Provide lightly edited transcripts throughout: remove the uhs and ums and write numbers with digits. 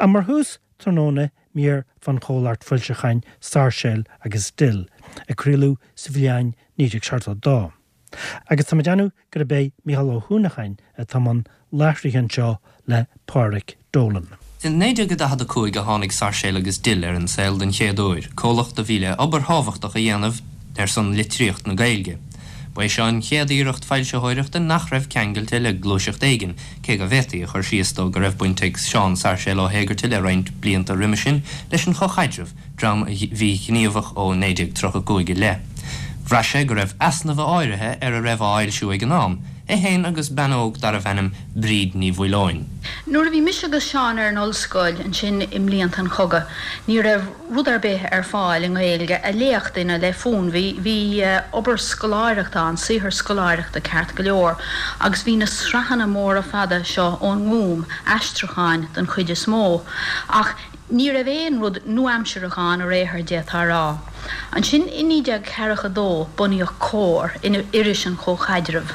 Ach mar thús tráthnóna mír fán chomhlacht foilseacháin Sáirséal agus Dill, a craoladh sa bhliain 1972. Agus tá mé ag déanamh gurb é Mícheál Ó hUanacháin atá i mbun láithrithe anseo le Pádhraic Dolan. In 1945 a tháinig Sáirséal agus Dill ar an saol den chéad uair, comhlacht a bhí le obair thábhachtach a dhéanamh ar son litríocht na Gaeilge. Ba é seo an chéad iarracht foilsitheoireachta nach raibh ceangailte le gluaiseacht éigin, cé go bhféadfaí a chur síos dó go raibh baint ag Seán Sáirséal Ó hÉigeartaigh le roinnt blianta roimhe sin leis an Chomhchaidreamh, dream a bhí gníomhach ó 1935 i leith. Bhraith sé go raibh easnaimh áirithe ar a raibh á fhoilsiú ag an am, é féin agus bean óg darbh ainm Bríd Ní Mhaoileoin. Nuair a bhí mise agus Seán ar an ollscoil ansin i mblianta an chogaidh, ní raibh rud ar bith ar fáil i nGaeilge a léadh duine le fonn. Bhí, bhí obair scoláireachta ann, saothar scoláireachta ceart go leor, agus bhí na sraitheanna móra fada seo ón nGúm, aistriúcháin den chuid is mó, ach ní raibh aon rud nua-aimsearach ann ar aon chor, d'fhéadfá a rá. Ansin i 1942 bunaíodh Comhar, iris an Chomhchaidrimh.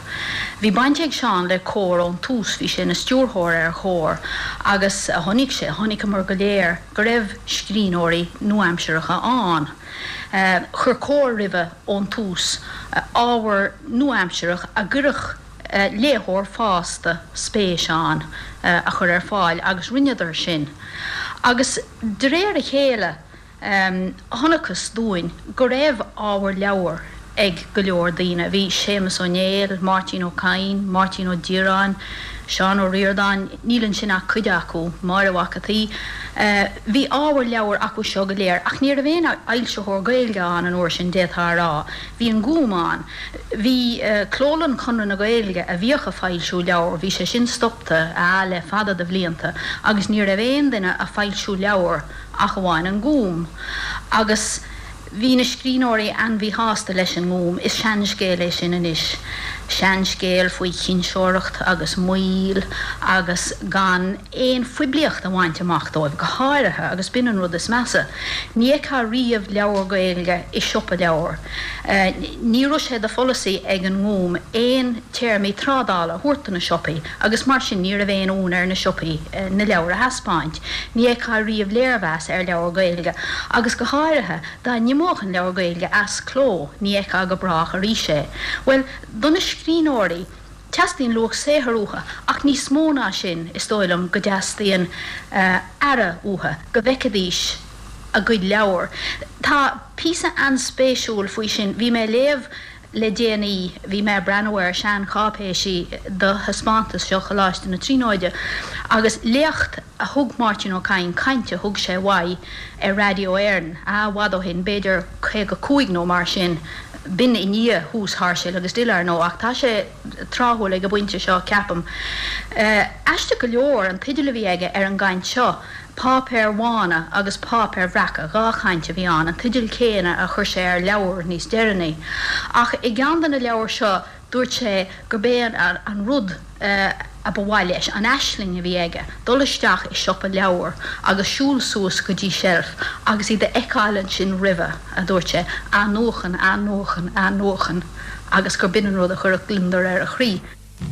Bhí baint ag Seán le Comhar ón tús, bhí sé ina stiúrthóir ar Chomhar agus chonaic sé, chonaiceamar go léir, go raibh scríbhneoirí nua-aimseartha ann. Chuir Comhar roimhe ón tús ábhar nua-aimsearach a gcuirfeadh léitheoir fásta spéis ann a chur ar fáil agus rinneadar sin. Agus de réir a chéile chonacthas dúinn go raibh ábhar leabhar ag go leor daoine. Bhí Séamus Ó Néill, Máirtín Ó Cadhain, Máirtín Ó Direáin, Seán Ó Ríordáin, níl ansin ach cuid acu, Máire Mhac an tSaoi. Bhí ábhar leabhar acu seo go léir ach ní raibh aon fhoilsitheoir Gaeilge ann an uair sin, d'fhéadfá a rá. Bhí an Gúm ann. Bhí Clólann Chonradh na Gaeilge a bhíodh a foilsiú leabhar, bhí sé sin stopta le fada de bhlianta agus ní raibh aon duine a foilsiú leabhar ach amháin an Gúm. Agus bhí na scríbhneoirí an-mhíshásta leis an nGúm. Is seanscéal é sin anois. Seanscéal faoi chinseoireacht agus moill agus gan aon phoiblíocht a bhaint amach dóibh, go háirithe, agus b'in an rud is measa. Ní fheicfeá riamh leabhar Gaeilge i siopa leabhar. Ní raibh sé de pholasaí ag an nGúm aon téarmaí trádála a thabhairt do na siopaí agus mar sin ní raibh aon fhonn ar na siopaí na leabhair a thaispeáint. Ní fheicfeá riamh léirmheas ar leabhar Gaeilge agus go háirithe dá n-imeodh an leabhar Gaeilge as cló ní fheicfeá go brách arís é. Bhuel, do na scríbhneoirí, teastaíonn luach saothair uathu ach níos mó ná sin is dóigh liom go dteastaíonn aire uathu, go bhfeicfidís a gcuid leabhar. Tá píosa an-spéisiúil faoi sin, bhí mé ag léamh le déanaí, bhí mé ag breathnú ar seancháipéisí do thaispeántas seo Choláiste na Tríonóide agus léacht a thug Máirtín Ó Cadhain, caint a thug sé uaidh ar Raidió Éireann, ah, i bhfad ó shin, b'fhéidir 55 nó mar sin, b'in i ndiaidh thús Sháirséal agus Dill, ar ndóigh, ach tá sé tráthúil ag an bpointe seo, ceapaim. Aisteach go leor, an teideal a bhí aige ar an gcaint seo, Páipéir Bhána agus Páipéir Bhreaca, 2 chaint a bhí ann, an teideal céanna a chuir sé ar leabhar níos deireanaí. Ach i gceann de na leabhair seo dúirt sé gurb é an rud a ba mhaith leis, an aisling a bhí aige, dul isteach i siopa leabhar agus siúl suas go dtí seilf agus iad a fheiceáil ansin roimhe, a dúirt sé, athnuachan, athnuachan, athnuachan agus gur b'in an rud a chuirfeadh gliondar ar a chroí.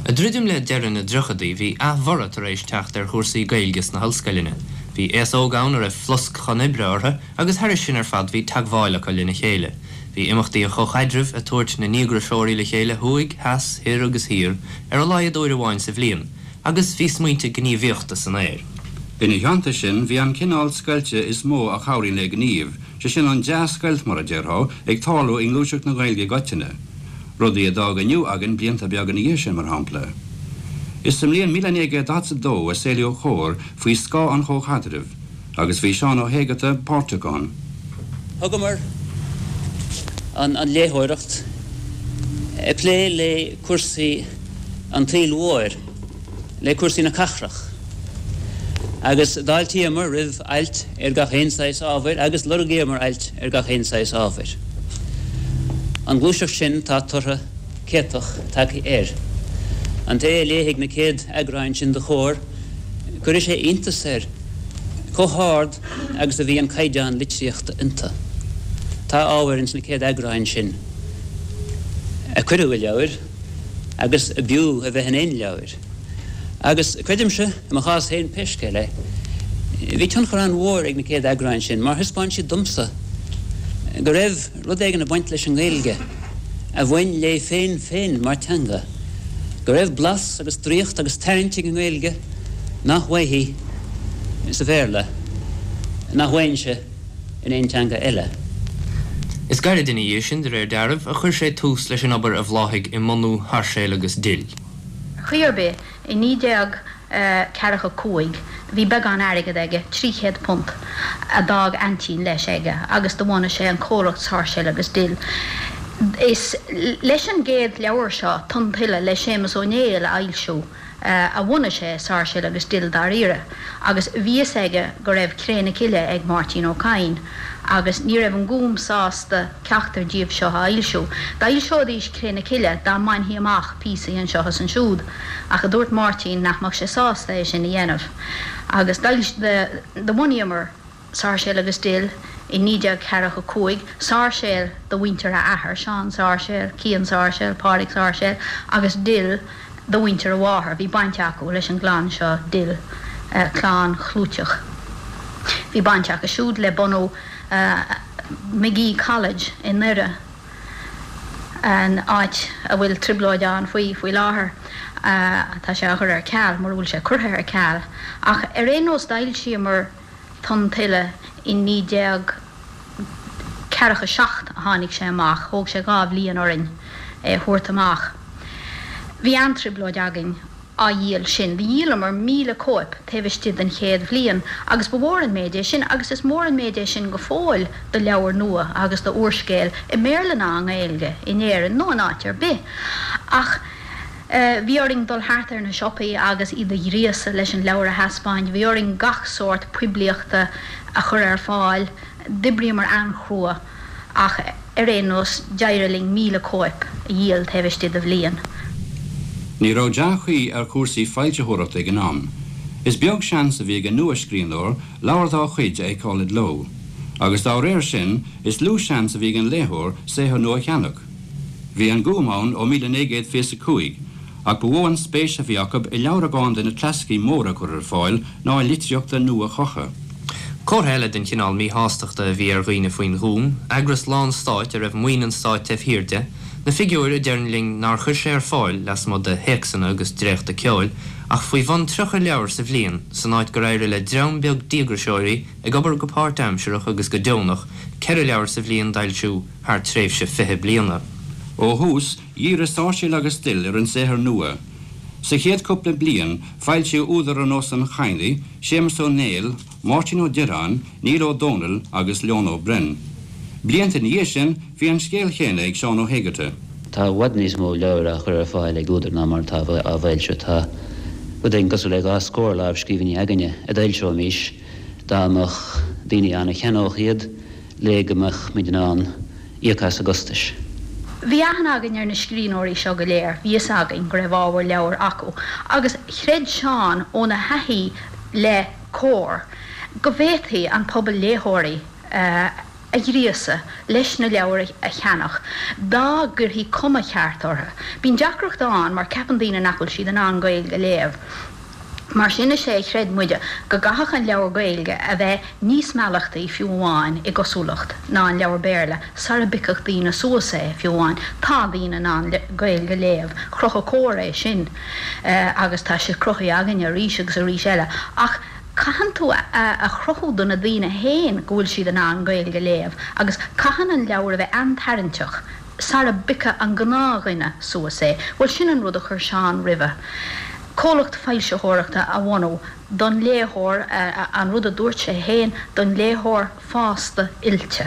Ag druidim le deireadh na dtríochaidí bhí athbhorradh tar éis teacht ar chúrsaí Gaeilge sna hollscoileanna. Bhí aos óg ann a raibh flosc chun oibre orthu agus thairis sin ar fad bhí teagmháil acu lena chéile. Bhí imeachtaí an Chomhchaidrimh ag tabhairt na ndíograiseoirí le chéile thuaidh, theas, thoir agus thiar ar a laghad uair amháin sa bhliain agus bhí smaointe gníomhaíochta san aer. Ina theannta sin, bhí an cineál scoilte is mó a chabhraíonn le gníomh, sé sin an dea-scoilt mar a déarfá, ag tarlú i ngluaiseacht na Gaeilge i gcoitinne. Rudaí a d'fhág Inniu againn blianta beaga ina dhiaidh sin, mar shampla. Is sa mbliain 1942 a saolaíodh Comhar faoi scáth an Chomhchaidrimh, agus bhí Seán Ó hÉigeartaigh páirteach ann. Thugamar an léitheoireacht ag plé le cúrsaí an tsaoil mhóir, le cúrsaí na cathrach, agus d'fháiltíomar roimh ailt ar gach aon saghas ábhair agus lorgaíomar ailt ar gach aon saghas ábhair. An ghluaiseacht sin tá toradh céatach tagtha air. An té a léifidh na céad eagráin sin de Chomhar, cuirfidh sé iontas air chomh hard agus a bhí an caighdeán litríochta iontu. Tá ábhair ins na céad eagráin sin a cuireadh i leabhair, agus a b'fhiú a bheith in aon leabhair. Agus creidimse, i mo chás féin pé scéal é, Bhí tionchar an-mhór ag na céad eagráin sin mar thaispeáin siad domsa go raibh rud éigin ag baint leis an nGaeilge a bhain léi féin féin mar teanga, go raibh blas agus draíocht agus tarraingt ag an nGaeilge nach bhfaighfí sa Bhéarla, nach bhfaighinnse in aon teanga eile. Is gairid ina dhiaidh sin, de réir dealraimh, a chuir sé tús leis an obair a bhláthaigh i mbunú Sháirséal agus Dill. Ar chaoi ar bith, i 1945 bhí beagán airgead aige, £300, a d'fhág aintín leis aige agus do bhunaigh sé an comhlacht Sáirséal agus Dill. Is leis an gcéad leabhar seo, Tonn Tuile le Séamus Ó Néill a fhoilsiú, a bhunaigh sé Sáirséal agus Dill dáiríre agus bhí fhios aige go raibh Cré na Cille ag Máirtín Ó Cadhain agus ní raibh an Gúm sásta ceachtar díobh seo a fhoilsiú. D'fhoilseoidís Cré na Cille dá mbainfí amach píosaí anseo is ansiúd ach a dúirt Máirtín nach mbeadh sé sásta é sin a dhéanamh agus do bhunaíomar Sáirséal agus Dill i 1945, Sáirséal do mhuintir a athar, Seán Sáirséal, Cian Sáirséal, Pádraig Sáirséal, agus Dill do mhuintir a mháthar. Bhí baint acu leis an gclann seo Dill, clann chlúiteach. Bhí baint acu siúd le bunú Magee College i nDoire, an áit a bhfuil trioblóid ann faoi faoi láthair. Tá sé á chur ar ceal, mura bhfuil sé curtha ar ceal. Ach ar aon nós d'fhoilsíomar Tonn Tuile i 1947 a tháinig sé amach, thóg sé 2 bhliain orainn é a thabhairt amach. Bhí an-trioblóid againn á dhíol sin. Dhíolamar 1,000 cóip taobh istigh den chéad bhliain agus ba mhór an méid é sin agus is mór an méid é sin go fóill do leabhar nua agus do úrscéal i mBéarla ná i nGaeilge in Éirinn nó in áit ar bith. Ach. Bhí orainn dul thart ar na siopaí agus iad a ghríosadh leis an leabhar a thaispeáint. Bhí orainn gach sórt poiblíochta a chur ar fáil. D'oibríomar an-chrua ach ar aon nós d'éirigh linn 1,000 cóip a dhíol taobh istigh de bhliain. Ní raibh dea-chaoi ar chúrsaí foilsitheoireachta ag an am. Is beag seans a bhí ag an nua-scríbhneoir leabhar dá chuid a fheiceáil i gcló. Agus dá réir sin, is lú seans a bhí ag an léitheoir saothar nua a cheannach. Bhí an Gúm ann ó 1925, ach ba mhó an spéis a bhí acu i leabhragáin de na clasaicí móra a chur ar fáil ná i litríocht nua-chumtha. Comhartha eile den chineál míshástachta a bhí ar dhaoine faoin Ghúm, eagras lán-stáit a raibh maoin an stáit taobh thiar de, na figiúir a deireann linn nár chuir sé ar fáil, lasmuigh de théacsanna agus dréachta ceoil, ach faoi bhun 30 leabhar sa bhliain, san áit gur éirigh le dream beag díograiseoirí ag obair go páirtaimsearach agus go deonach, ceithre leabhar sa bhliain d'fhoilsiú. thar tréimhse 20 bliana. Ó thús, dhírigh Sáirséal agus Dill ar an saothar nua. Sa chéad chúpla bliain, foilsíodh údair ar nós an Chadhnaigh, Séamus Ó Néill, Máirtín Ó Direáin, Niall Ó Dónaill agus Leon Ó Broin. Blianta ina dhiaidh sin, bhí an scéal chéanna ag Seán Ó hÉigeartaigh. Tá i bhfad níos mó leabhar á chur ar fáil ag údair ná mar atá á bhfoilsiú. Tá rud éigin cosúil le 2 scór lámhscríbhinní againne a d'fhoilseoimís dá mbeadh daoine ann a cheannódh iad. le go mbeadh muid in ann íoc as a gcostais. Bhí aithne againn ar na scríbhneoirí seo go léir, bhí fhios againn go raibh ábhar leabhair acu agus chreid Seán óna thaithí le Comhar go bhféadfaí an pobal léitheoirí a ghríosadh leis na leabhair a cheannach dá gcuirfí cuma cheart orthu. Bíonn deacracht ann mar ceapann daoine nach bhfuil siad in ann Gaeilge a léamh. Mar sin is é a chreid muide go gcaithfeadh an leabhar Gaeilge a bheith níos meallachtaí fiú amháin i gcosúlacht ná an leabhar Béarla sara bpiocfadh daoine suas é fiú amháin. Tá daoine in ann Gaeilge a léamh, chruthaigh Comhar é sin agus tá sé cruthaithe againne arís agus arís eile ach caitheann tú a chruthú do na daoine féin go bhfuil siad in ann Gaeilge a léamh agus caitheann an leabhar a bheith an-tarraingteach sara bpiocfadh an gnáthdhuine suas é. Bhuel sin an rud a chuir Seán roimhe. Comhlacht foilsitheoireachta a bhunú don léitheoir, an rud a dúirt sé féin, don léitheoir fásta oilte,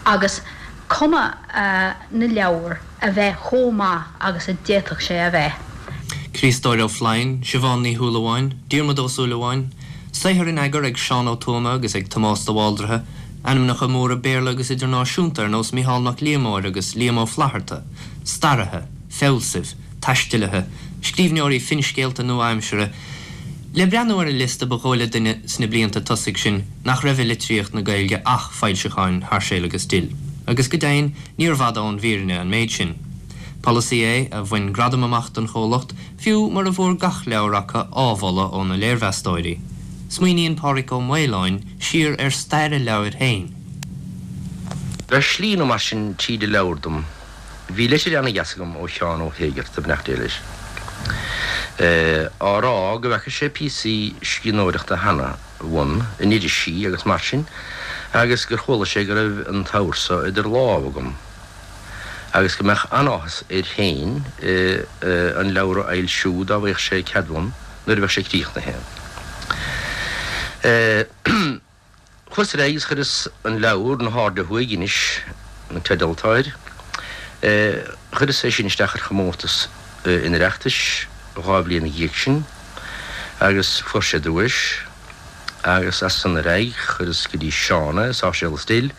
agus cuma na leabhar a bheith chomh maith agus a d'fhéadfadh sé a bheith. Críostóir Ó Floinn, Siobhán Ní Shúilleabháin, Diarmuid Ó Súilleabháin, saothar in eagar ag Seán Ó Tuama agus ag Tomás de Bhaldraithe, ainmneacha móra Béarla agus idirnáisiúnta ar nós Mícheál Mac Liammóir agus Liam Ó Flaithearta, staraithe, fealsaimh, taistealaithe, scríbhneoirí finscéalta nua-aimseartha. Le breathnú ar an liosta ba dhóigh le duine sna blianta tosaigh sin nach raibh i litríocht na Gaeilge ach foilseacháin Sháirséal agus Dill. Agus go deimhin níorbh fhada ón bhfírinne an méid sin. Polasaí é a bhain gradam amach don chomhlacht, fiú mura bhfuair gach leabhar acu ádhmholadh ó na léirmheastóirí. Smaoiníonn Pádraig Ó Maoláin siar ar stair a leabhair féin. Ar shlí nó mar sin tríd an leabhar dom, bhí litir ana-dheas agam ó Sheán Ó hÉigearta, beannacht Dé leis, á rá go bhfeaca sé píosaí scríbhneoireachta cheana uaim in irisí agus mar sin agus gur chuala sé go raibh an t-abhar so idir lámha agam agus go mbeadh an-áthas air féin an leabhar a fhoilsiú dá bhfaigheadh sé cead uaim nuair a bheadh sé críochnaithe. Chuas ar aghaidh agus chuireas an leabhar, Na hAirde Thuaidh, Inis, an teideal atá air, chuireas é sin isteach ar chomórtas an Oireachtais dhá bhliain ina dhiaidh sin agus fuair sé duais agus as san ar aghaidh chuireas go dtí Seán é, Sáirséal is Dill.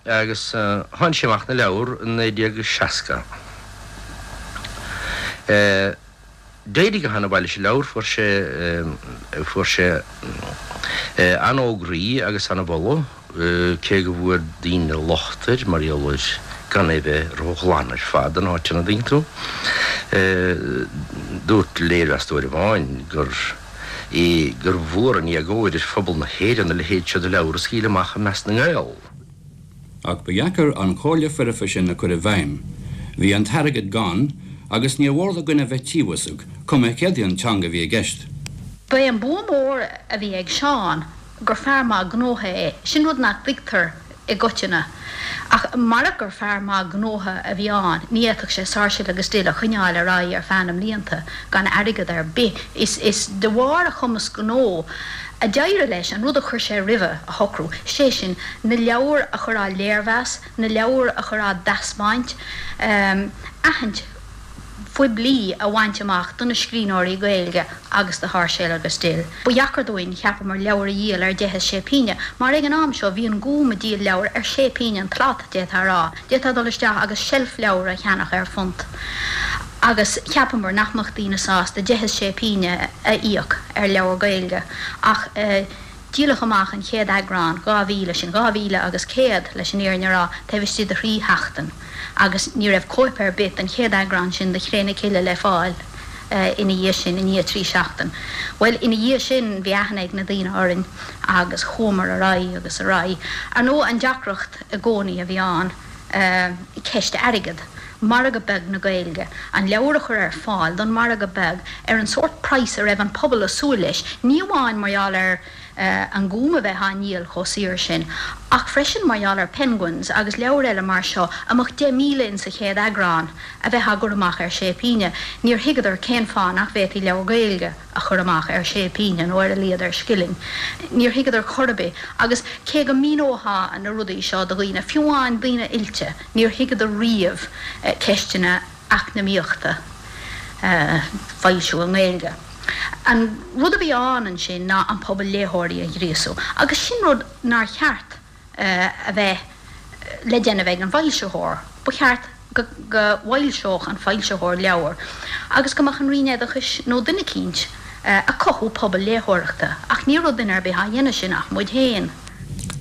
Agus tháinig sé amach ina leabhar i 1960. D'éirigh go han-mhaith leis an leabhar, fuair sé, fuair sé an-fhógraí agus an-mholadh, cé go bhfuair daoine locht air mar gheall ar gan é bheith ró-ghlan ar fad in áiteanna, an dtuigeann tú. Dúirt léirmheastóir amháin gur. é gur mhór an éagóir ar phobal na hÉireann a leithéid seo de leabhar a scaoileadh amach i measc na nGael. Ach ba dheacair an chomhairle foirfe sin a chur i bhfeidhm. Bhí an t-airgead gann agus níor mhór do dhuine bheith tíobhasach, cuma céard í an teanga a bhí i gceist. Ba é an bua mór a bhí ag Seán gur fear maith gnótha é. Sin rud nach dtuigtear i gcoitinne. Ach marach gur fear maith gnótha a bhí ann, ní fhéadfadh sé Sáirséal agus Dill a choinneáil ar aghaidh ar feadh na mblianta gan airgead ar bith. Is de bharr a chumas gnó a d'éirigh leis an rud a chuir sé roimhe a shocrú, sé sin, na leabhair a chur á léirmheas, na leabhair a chur á dtaispeáint, aithint phoiblí a bhaint amach do na scríbhneoirí Gaeilge agus do Sháirséal agus Dill. Ba dheacair dúinn, cheapamar, leabhair a dhíol ar deich is sé pínne, mar ag an am seo bhí an Gúm ag díol leabhar ar sé pínne an tslat, d'fhéadfá a rá. D'fhéadfá dul isteach agus seilf leabhar a cheannach ar phunt. Agus cheapamar nach mbeadh daoine sásta deich is sé pínne a íoc ar leabhar Gaeilge. Ach díoladh amach an chéad eagrán, 2,000, sin 2,000 agus 100 leis an fhírinne a rá, taobh istigh de thrí sheachtain. Agus ní raibh cóip ar bith den chéad eagrán sin de Chré na Cille le fáil ina dhiaidh sin, i ndiaidh trí seachtain. Bhuel, ina dhiaidh sin bhí aithne ag na daoine orainn agus chuamar ar aghaidh agus ar aghaidh. Ar ndóigh, an deacracht i gcónaí a bhí ann, ceist airgid. Margadh beag na Gaeilge. An leabhar a chur ar fáil don mhargadh beag ar an sórt praghas a raibh an pobal ag súil leis, ní amháin mar gheall ar An Gúm a bheith á ndíol chomh saor sin, ach freisin mar gheall ar Penguins agus leabhair eile mar seo a mbeadh 10,000 in sa chéad eagrán a bheith á gcur amach ar sé pínne. Níor thuigeadar cén fáth nach bhféadfaí leabhar Gaeilge a chur amach ar sé pínne nó ar a laghad ar scilling. Níor thuigeadar chor ar bith. Agus cé go míneofá na rudaí seo do dhaoine, fiú amháin daoine oilte, níor thuigeadar riamh ceisteanna eacnamaíochta foilsiú i nGaeilge. An rud a bhí ann ansin ná an pobal léitheoirí a ghríosú, agus sin rud nár cheart a bheith le déanamh ag an bhfoilsitheoir. Ba cheart go bhfoilseodh an foilsitheoir leabhar agus go mbeadh an Roinn Oideachais nó duine eicínt ag cothú pobal léitheoireachta, ach ní raibh duine ar bith á dhéanamh sin ach muid féin.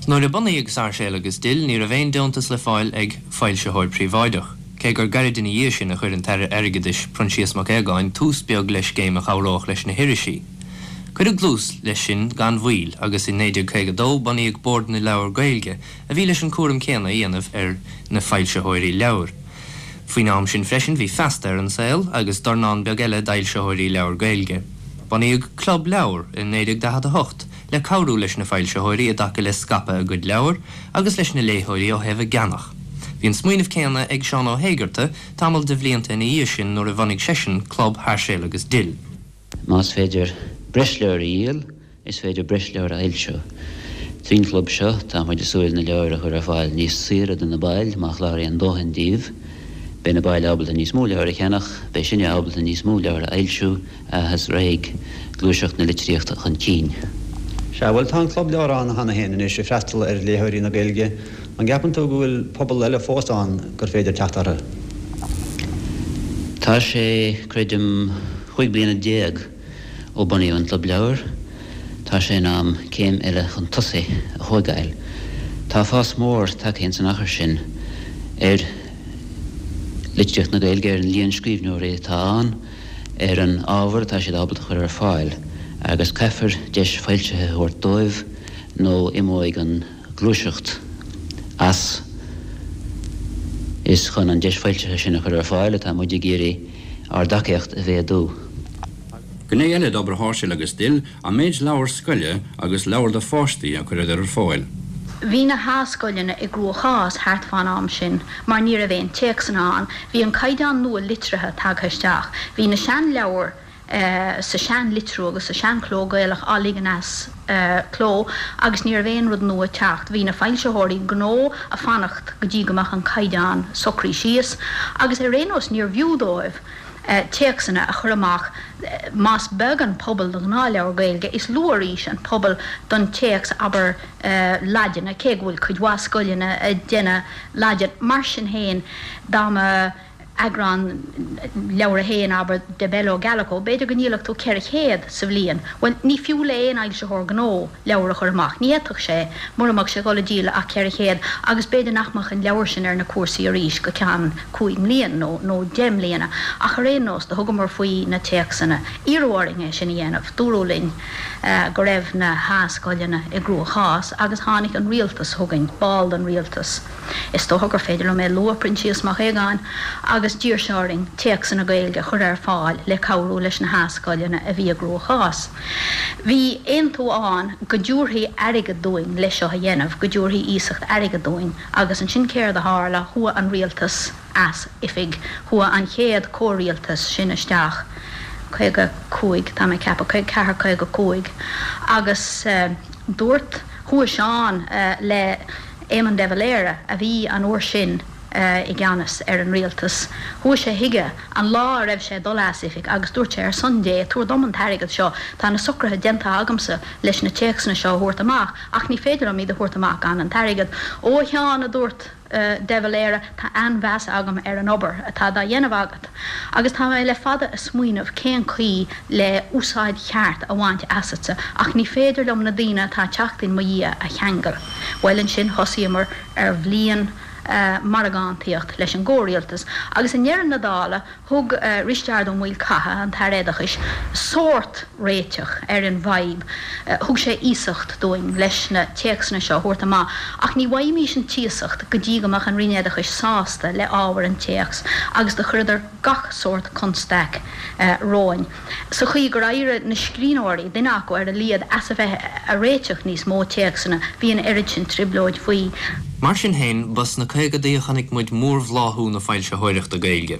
Nuair a bunaíodh Sáirséal agus Dill ní raibh aon deontas le fáil ag foilsitheoir príobháideach, cé gur gairid ina dhiaidh sin a chuir an tAire Airgeadais, Proinsias Mac Aogáin, tús beag le scéim a chabhródh leis na hirisí. Cuireadh dlús leis sin gan mhoill agus i 1952 bunaíodh Bord na Leabhar Gaeilge a bhí leis an cúram céanna a dhéanamh ar na foilsitheoirí leabhar. Faoin am sin freisin bhí Feasta ar an saol agus dornán beag eile d'fhoilsitheoirí leabhar Gaeilge. Bunaíodh Club Leabhar i 1948 le cabhrú leis na foilsitheoirí i dtaca le scaipeadh a gcuid leabhar agus leis na léitheoirí ó thaobh a gceannach. Bhí an smaoineamh céanna ag Seán Ó hÉigearta tamall de bhlianta ina dhiaidh sin nuair a bhunaigh seisean Club Sháirséal agus Dill. Más féidir breis leabhar a dhíol, is féidir breis leabhar a fhoilsiú. Trín chlub seo, tá muid ag súil na leabhair a chur ar fáil níos saoire do na baill, má chláraíonn dóthain díobh. Beidh na baill ábalta níos mó leabhar a cheannach, beidh sinne ábalta níos mó leabhar a fhoilsiú, agus raghaidh gluaiseacht na litríochta chun cinn. Sea, bhuel, tá an Club Leabhar ann cheana féin anois ag freastal ar léitheoirí na Gaeilge. An gceapann tú go bhfuil pobal eile fós ann gur féidir teacht orthu? Tá sé, creidim, chúig bliana déag ó bunaíodh an Club Leabhar. Tá sé in am céim eile chun tosaigh a thóigeáil. Tá fás mór tagtha ins an achar sin ar litríocht na Gaeilge, ar an líon scríbhneoirí atá ann, ar an ábhar atá siad ábalta a chur ar fáil. Agus caithfear deis foilsithe a thabhairt dóibh nó imeoidh an ghluaiseacht as. Is chun an deis foilsithe sin a chur ar fáil atá muid ag iarraidh ár dtacaíocht a mhéadú. Gné eile d'obair Sháirséal agus Dill an méid leabhar scoile agus leabhar do pháistí a chuireadar ar fáil. Bhí na h-scoileanna i gcruachás thart fán am sin mar ní raibh aon téacsanna ann. Bhí an caighdeán nua litrithe tagtha isteach. Bhí na seanleabhair sa seanlitriú agus sa seanchló Gaelach á ligean as cló agus ní raibh aon rud nua ag teacht. Bhí na foilsitheoirí gnó a' fanacht go dtí go mbeadh an caighdeán socraithe síos agus ar aon nós níorbh fhiú dóibh téacsanna a chur amach. Más beag an pobal do ghnáthleabhar Gaeilge, is lú arís an pobal don téacs, abair, Laidine, cé go bhfuil cuid mhaith scoileanna ag déanamh Laidin. Mar sin féin, dá mba eagrán, leabhar a haon, abair, De Bello Gallico, b'fhéidir go ndíolfadh tú 400 sa bhliain. Bhuel, ní fiú le aon fhoilsitheoir gnó leabhar a chur amach. Ní fhéadfadh sé, mura mbeadh sé ag dul a dhíol ach 400, agus b'fhéidir nach mbeadh an leabhar sin ar na cúrsaí arís go ceann cúig mblian nó nó deich mbliana. Ach ar aon nós, do thugamar faoi na téacsanna. Iarradh orainn é sin a dhéanamh. Dúradh linn go raibh na h-scoileanna i gcruachás agus tháinig an rialtas chugainn, ball den rialtas, Is dócha gur féidir liom é a lua, Proinsias Mac Aogáin, agus d'iarr sé orainn téacsanna Gaeilge a chur ar fáil le cabhrú leis na h-scoileanna a bhí i gcruachás. Bhí aontú ann go dtabharfaí airgead dúinn le seo a dhéanamh, go dtabharfaí iasacht airgid dúinn agus ansin céard a tharla, chuaigh an rialtas as oifig, chuaigh an chéad comhrialtas sin isteach, 55, tá mé ag ceapadh, 54, 55, agus dúirt, chuaigh Seán le. Éamon de Valera, a bhí an uair sin i gceannas ar an rialtas. Chuaigh sé chuige an lá a raibh sé ag dul as oifig agus dúirt sé, Ar son Dé, tabhair dom an t-airgead seo, tá na socruithe déanta agamsa leis na téacsanna seo a thabhairt amach, ach ní féidir liom iad a thabhairt amach gan an t-airgead. Ó, a Sheáin, a dúirt de Valera, tá an-mheas agam ar an obair atá dá dhéanamh agat agus tá mé le fada a smaoineamh cén chaoi le úsáid cheart a bhaint asatsa ach ní féidir liom na daoine atá ag teacht in mo dhiaidh a cheangal. Bhuel ansin thosaíomar ar bhliain margántaíocht leis an gcomhrialtas agus i ndeireadh na dála thug Risteard Ó Maolchatha, an tAire Oideachais, sórt réiteach ar an bhfadhb. Thug sé iasacht dúinn leis na téacsanna seo a thabhairt amach ach ní bhfaighimís an t-iasacht go dtí go mbeadh an Roinn Oideachais sásta le ábhar an téacs agus do chuireadar gach sórt constaic romhainn. Sa chaoi gur éirigh na scríbhneoirí, duine acu ar a laghad, as a bheith a réiteach níos mó téacsanna, bhí an oiread sin trioblóid faoi. Mar sin féin, ba sna caogadaí a chonaic muid mórbhláthú na foilsitheoireachta Gaeilge.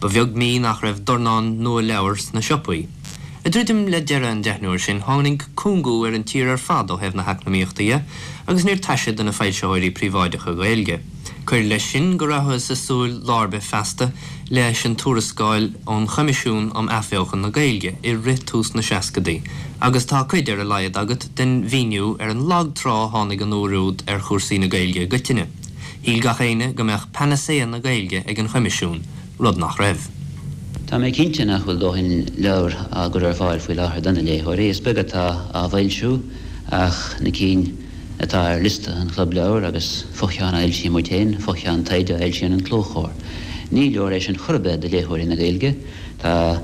Ba bheag mí nach raibh dornán nua leabhar sna siopaí. Ag druidim le deireadh an deichniúir sin, tháinig cúngú ar an tír ar fad ó thaobh na heacnamaíochta dhe agus níor taise do na foilsitheoirí príobháideacha Gaeilge. Cuir leis sin go rabhthas ag súil lá ar bith feasta leis an tuarascáil ón Choimisiún um Athbheochan na Gaeilge i rith tús na seascadaí agus tá cuid, ar a laghad, agat den mhíniú ar an lag trá a tháinig an uair úd ar chúrsaí na Gaeilge i gcoitinne. Shíl gach éinne go mbeadh panacea na Gaeilge ag an Choimisiún, rud nach raibh. Tá mé cinnte nach bhfuil dóthain leabhar á gcur ar fáil faoi láthair do na léitheoirí. Is beag atá á bhfoilsiú ach na cinn atá ar liosta an Chlub Leabhar agus fo-cheann a fhoilsíonn muid féin, fo-cheann taighde a fhoilsíonn an Clóchomhar. Ní leor é sin chor ar bith do léitheoirí na Gaeilge. Tá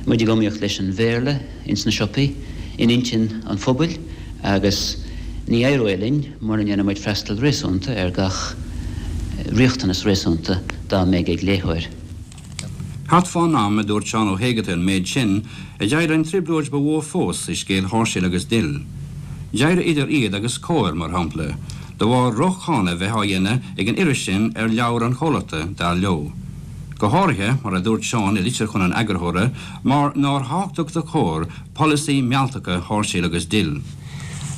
muid ag iomaíocht leis an Bhéarla ins na siopaí, in intinn an phobail agus ní éireoidh linn mura ndéanann muid freastal réasúnta ar gach riachtanas réasúnta dá mbeidh ag léitheoir. Thart fán am a dúirt Seán Ó hÉigeartaigh an méid sin, a d'éirigh an trioblóid ba mhó fós i scéal Sháirséal agus Dill. D'éirigh idir iad agus Comhar, mar shampla, de bharr droch-cháineadh a bheith á dhéanamh ag an iris sin ar leabhair an chomhlachta, dar leo. Go háirithe, mar a dúirt Seán i litir chun an eagarthóra, mar nár thábhachtach do Chomhar polasaí mealltacha Sháirséal agus Dill.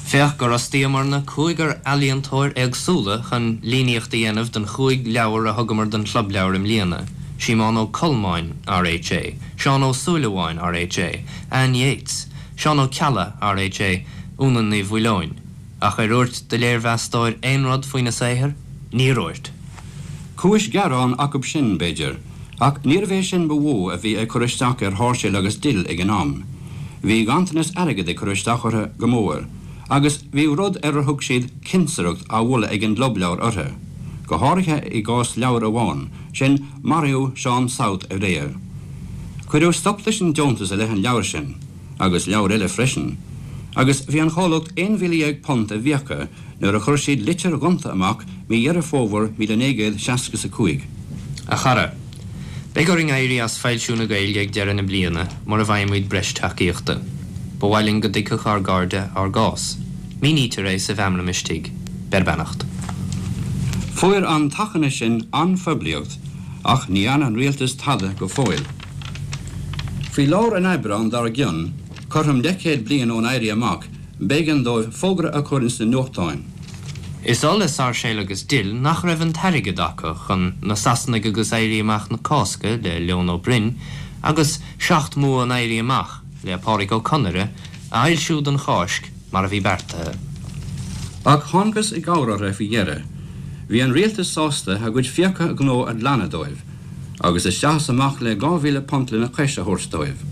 Féach gur fhostaíomarna cúigear ealaíontóir éagsúla chun líníocht a dhéanamh don chúig leabhar a thugamar don Chlub Leabhar i mbliana, Síomón Ó Colmáin, R.H.A., Seán Ó Súilleabháin, R.H.A., Anne Yeates, Seán Ó Ceallaigh, R.H.A., Úna Ní Mhaoileoin. Ach ar úirt do léirmheastóir aon rud faoina saothar? Níor úirt. Cúis ghearáin acub sin, b'fhéidir, ach níorbh é sin ba mhó a bhí ag cur isteach ar Sháirséal agus Dill ag an am. Bhí ganntanas airgid ag cur isteach orthu go mór, agus bhí rud ar ar thug siad 'cinsireacht' á mholadh ag an gClub Leabhar orthu, go háirithe i gcás leabhair amháin, sin Maraíodh Seán South Aréir. Cuireadh stop leis an deontas i leith an leabhair sin. agus leabhair eile freisin, agus bhí an chomhlucht £11,000 i bhfiacha nuair a chuir siad litir ghonta amach mí Dheireadh Fómhair 1965. A chara, Beidh orainn éirí as foilsiú na Gaeilge ag deireadh na bliana mura bhfaighimid breis tacaíochta. Ba mhaith linn go dtuigfeadh ár gcairde ár gcás. Mínítear é sa mheamram istigh. Beir beannacht. Fuair an t-achainí sin an-phoiblíocht ach ní dhearna an rialtas tada go fóill. Faoi lár an Aibreáin dár gcionn, cothrom leathchéad bliain ón Éirí Amach, b'éigean dóibh fógra a chur ins na nuachtáin. Is oth le Sáirséal agus Dill nach raibh an t-airgead acu chun Na Sasanaigh agus Éirí Amach na Cásca le Leon Ó Broin agus Seacht mBua an Éirí Amach le Pádraic Ó Conaire a fhoilsiú don Cháisc mar a bhí beartaithe. Ach thángthas i gcabhair orthu faoi dheireadh. Bhí an rialtas sásta a gcuid fiacha gnó a ghlanadh dóibh, agus isteach is amach le £2,000 lena chois a thabhairt dóibh.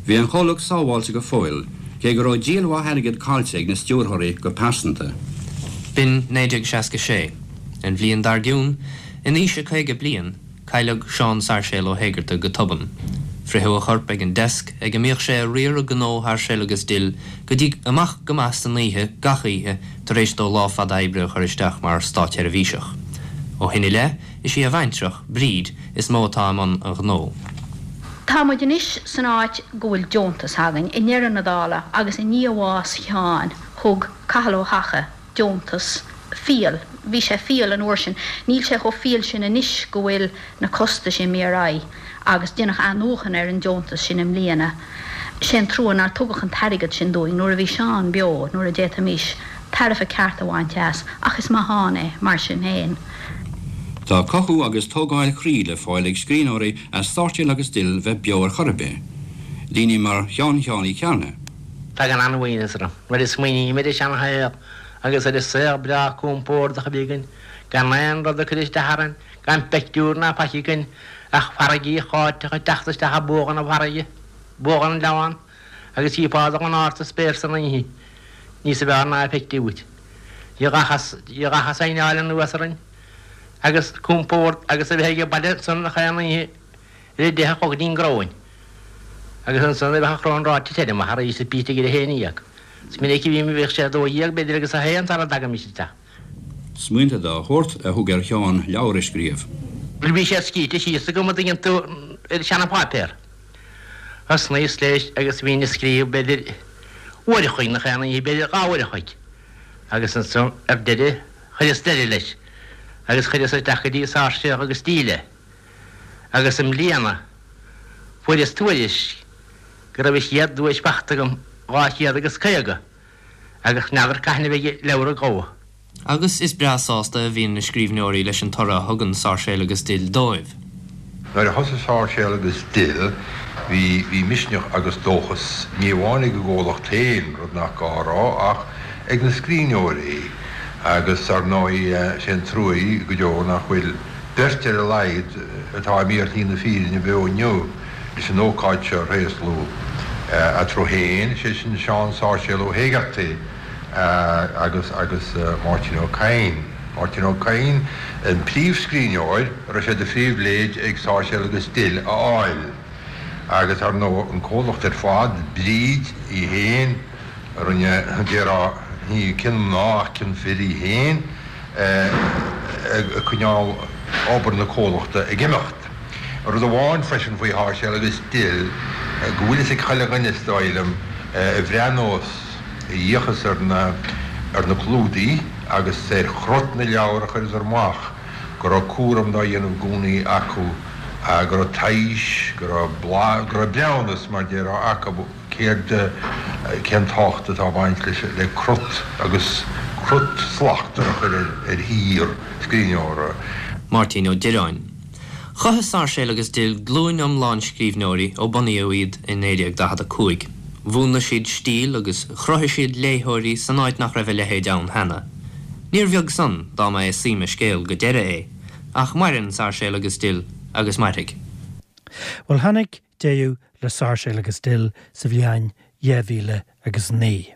Bhí an chomhlucht sábháilte go fóill, cé go raibh díol mhaith airgid caillte ag na stiúrthóirí go pearsanta. B'in 1966. An bhliain dar gcionn, in aois a 50 bliain, Cailleadh Seán Sáirséal Ó hÉigeartaigh go tobann. Fritheadh a chorp ag an deasc ag a mbíodh sé ag riaradh gnó Sháirséal agus Dill go dtí amach go maith san oíche gach oíche tar éis dó lá fada oibre a chur isteach mar státsheirbhíseach. Ó shin i leith, is í a bhaintreach, Bríd, is mó atá i mbun an ghnó. Tá muid anois san áit go bhfuil deontas againn. I ndeireadh na dála, agus i ndiaidh bhás Sheáin, thug Cathal Ó hEacha, deontas fial. Bhí sé fial an uair sin. Níl sé chomh fial sin anois go bhfuil na costais imithe ar aghaidh agus deineadh athnuachan ar an deontas sin i mbliana. Sé an trua nár tugadh an t-airgead sin dúinn nuair a bhí Seán beo, nuair a d'fhéadfaimis tairbhe ceart a bhaint as, ach is maith ann é mar sin féin. Tá cothú agus tógáil chroí le fáil ag scríbhneoirí as Sáirséal agus Dill bheith beo ar chor ar bith. Daoine mar Sheán Sheáin Uí Chearna. Tagann an-uaigneas orm nuair a smaoiním ar an seanshaol agus ar an saol breá compordach a bhí againn, gan aon rud ag cur isteach orainn, gan peictiúr ná faic againn ach farraigí cháiteach ag teacht isteach i bogha na farraige, bogha an Leamhán, agus chífeá dul in ard sa spéir san oíche, níosa bhfearr ná a feictí uait. Ní gach a saighneáil anuas orainn agus compord agus a bheith age baile ansan chaon oíche ar a deich a chlog go dtí an gcróin. Agus ansan bheadh an chrón ráite tirim arís is bítear ag a 11. Is minic a bhí bhíodh sé a 12 b'fhéidir agus a haon sara dtagaimis isteach. Smaointe dá shórt a thug ar Sheán leabhar a scríobh. Bhuel bhí siad scríte síos agam an dtuigeann tú ar seana-pháipéar. Thosnaíos leis agus bhínn ag scríobh b'fhéidir uair a chloig nach aon oíche b'fhéidir dhá uair a chloig. Agus ansan ar deireadh chuireas deireadh leis agus chuireas isteach go dtí Sáirséal agus Dill é. Agus i mbliana fuaireas tuairisc go raibh an chéad duais fachta agam, 250, agus n'fheadar cathain a bheidh an leabhar ag gabhadh. Agus is breá sásta a bhíonn na scríbhneoirí leis an toradh a thugann Sáirséal agus Dill dóibh. Nuair a thosaigh Sáirséal agus Dill, bhí, bhí misneach agus dóchas, ní amháin ag an gcomhlacht féin, rud nach gá a rá, ach ag na scríbhneoirí. Agus, ar ndóigh, sé an trua go deo nach bhfuil beirt ar a laghad atá imithe ar shlí na fírinne beo inniu leis an ócáid seo a thréaslú eatarthu féin, sé sin Seán Sáirséal Ó hÉigeartaigh agus agus Máirtín Ó Cadhain. Máirtín Ó Cadhain an príomhscríbhneoir a raibh sé de phribhléid ag Sáirséal agus Dill a fháil agus ar ndóigh an comhlacht ar fad, Bríd í féin, a rinne, déarfá, ní cionn mná ach cionn fir í féin, ag coinneáil obair na comhlachta ag imeacht. Rud amháin freisin faoi Sháirséal agus Dill, go bhfuil fhios ag chuile dhuine, is dóigh liom, a bhreathnós, a fhéachas ar na, ar na clúdaigh agus ar chrut na leabhar a chuireadar amach, go raibh cúram dá dhéanamh i gcónaí acu, go raibh teist, go raibh blas, go raibh breithiúnas, mar déarfá, acu. Céard, cén tábhacht atá ag baint leis, le crut agus crut slachtmhar a chur ar shaothar scríbhneora? Máirtín Ó Direáin. Chothaigh Sáirséal agus Dill glúin iomlán scríbhneoirí ó bunaíodh iad i 1945. Mhúnlaigh siad stíl agus chruthaigh siad léitheoirí san áit nach raibh a leithéid ann cheana. Níor bheag san dá mba é suim a scéil go deireadh é. Ach maireann Sáirséal agus Dill agus mairfidh. Bhuel tháinig deireadh le Sáirséal agus Dill sa bhliain 2009.